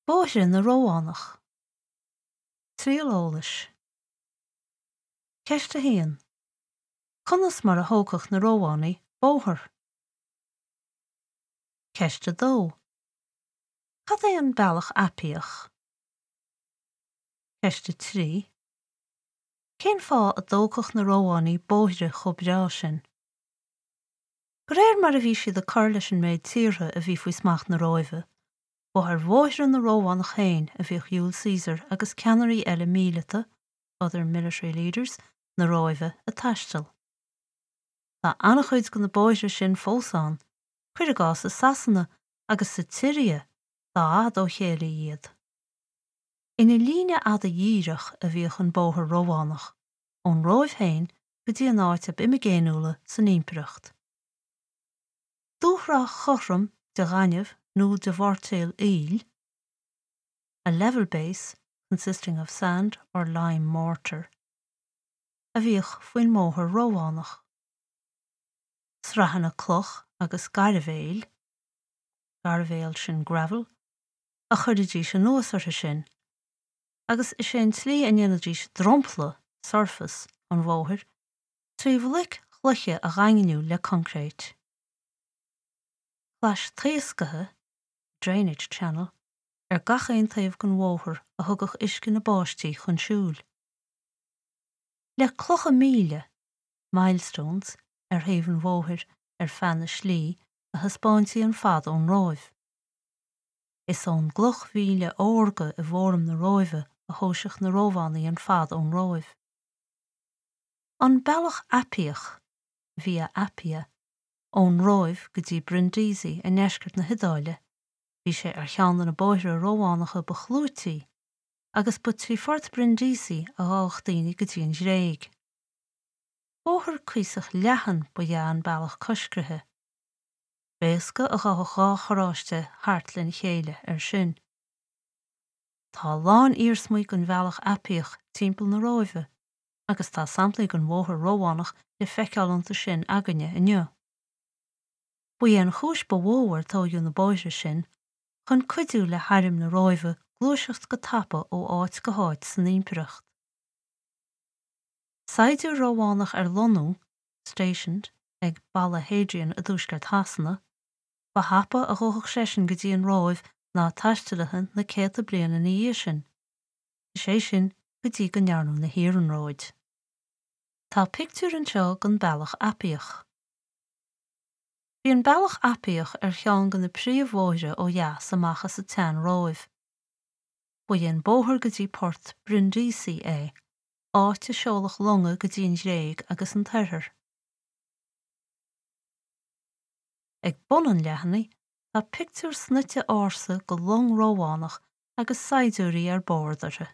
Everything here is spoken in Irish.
Bóithre na Rómhánach. Triail eolais. Ceist 1. Conas mar a thógfadh na Rómhánaigh bóthar? Ceist 2. Cad é an Bealach Aipiach? Ceist 3. Cén fáth a dtógfadh na Rómhánaigh bóithre chomh breá sin? De réir mar a bhí siad ag cur leis an méid tíortha a bhí faoi smacht na Róimhe, Ba ar bhóithre na Rómhánach féin a bhíodh Iúil Caesar agus ceannairí eile míleata, other military leaders, na Róimhe ag taisteal. Tá an-chuid de na bóithre sin fós ann, cuir i gcás i Sasana agus sa tSiria, dá fhad ó chéile iad. Ina líne fhada dhíreach a bhíodh an bóthar Rómhánach, ón Róimh féin go dtí an áit ab imigéiniúla san impireacht. Dúshraith chothrom de ghaineamh nó de mhoirtéal aoil, a level base consisting of sand or lime mortar, a bhíodh faoin mbóthar Rómhánach. Sraitheanna cloch agus gairbhéil, gairbhéal sin gravel, a chuiridís anuas orthu sin, agus is é an tslí a ndéanaidís dromchla, surface, an bhóthair 3 bhloic chloiche a dhaingniú le coincréit. Clais taosctha, drainage channel, ar gach aon taobh den bhóthar a thugadh uisce na báistí chun siúil. Le clocha míle, milestones, ar thaobh an bhóthair ar feadh na slí a thaispeáintí an fad ón Róimh. Is ón gcloch mhíle órga i bhFóram na Róimhe a thomhaiseadh na Rómhánaigh an fad ón Róimh. An Bealach Aipiach, Via Appia, ón Róimh go dtí Brindisi i ndeisceart na hIodáile, bhí sé ar cheann de na bóithre Rómhánacha ba chlúití, agus ba trí phort Brindisi a ghabhadh daoine go dtí an Ghréig. Bóthar cuíosach leathan ba ea an bealach coiscrithe. B'éasca a ghabhadh dhá charráiste thart lena chéile air sin. Tá a lán iarsmaí den Bhealach Aipiach timpeall na Róimhe, agus tá samplaí den bhóthar Rómhánach le feiceáil iontu sin againne inniu. Ba é an chúis ba mhó ar tóigeadh na bóithre sin chun cuidiú le hairm na Róimhe gluaiseacht go tapa ó áit go háit san impireacht. Saighdiúir Rómhánach ar lonnú, stationed, ag Balla Hadrian i dtuaisceart Shasana, ba thapa a ghabhfadh seisean go dtí an Róimh ná taistealaithe na céadta bliain ina dhiaidh sin. is é sin go dtí go ndearnadh na hiarnróid. Tá pictiúr anseo den Bealach Aipiach. Bhí an Bealach Aipiach ar cheann de na príomhbhóithre ó dheas amach as an tSean-Róimh. Ba é an bóthar go dtí port Brindisi é, áit a seoladh longa go dtí an Ghréig agus an tOirthear. Ag bun an leathanaigh tá pictiúr snoite ársa de long Rómhánach agus saighdiúirí ar bord uirthi.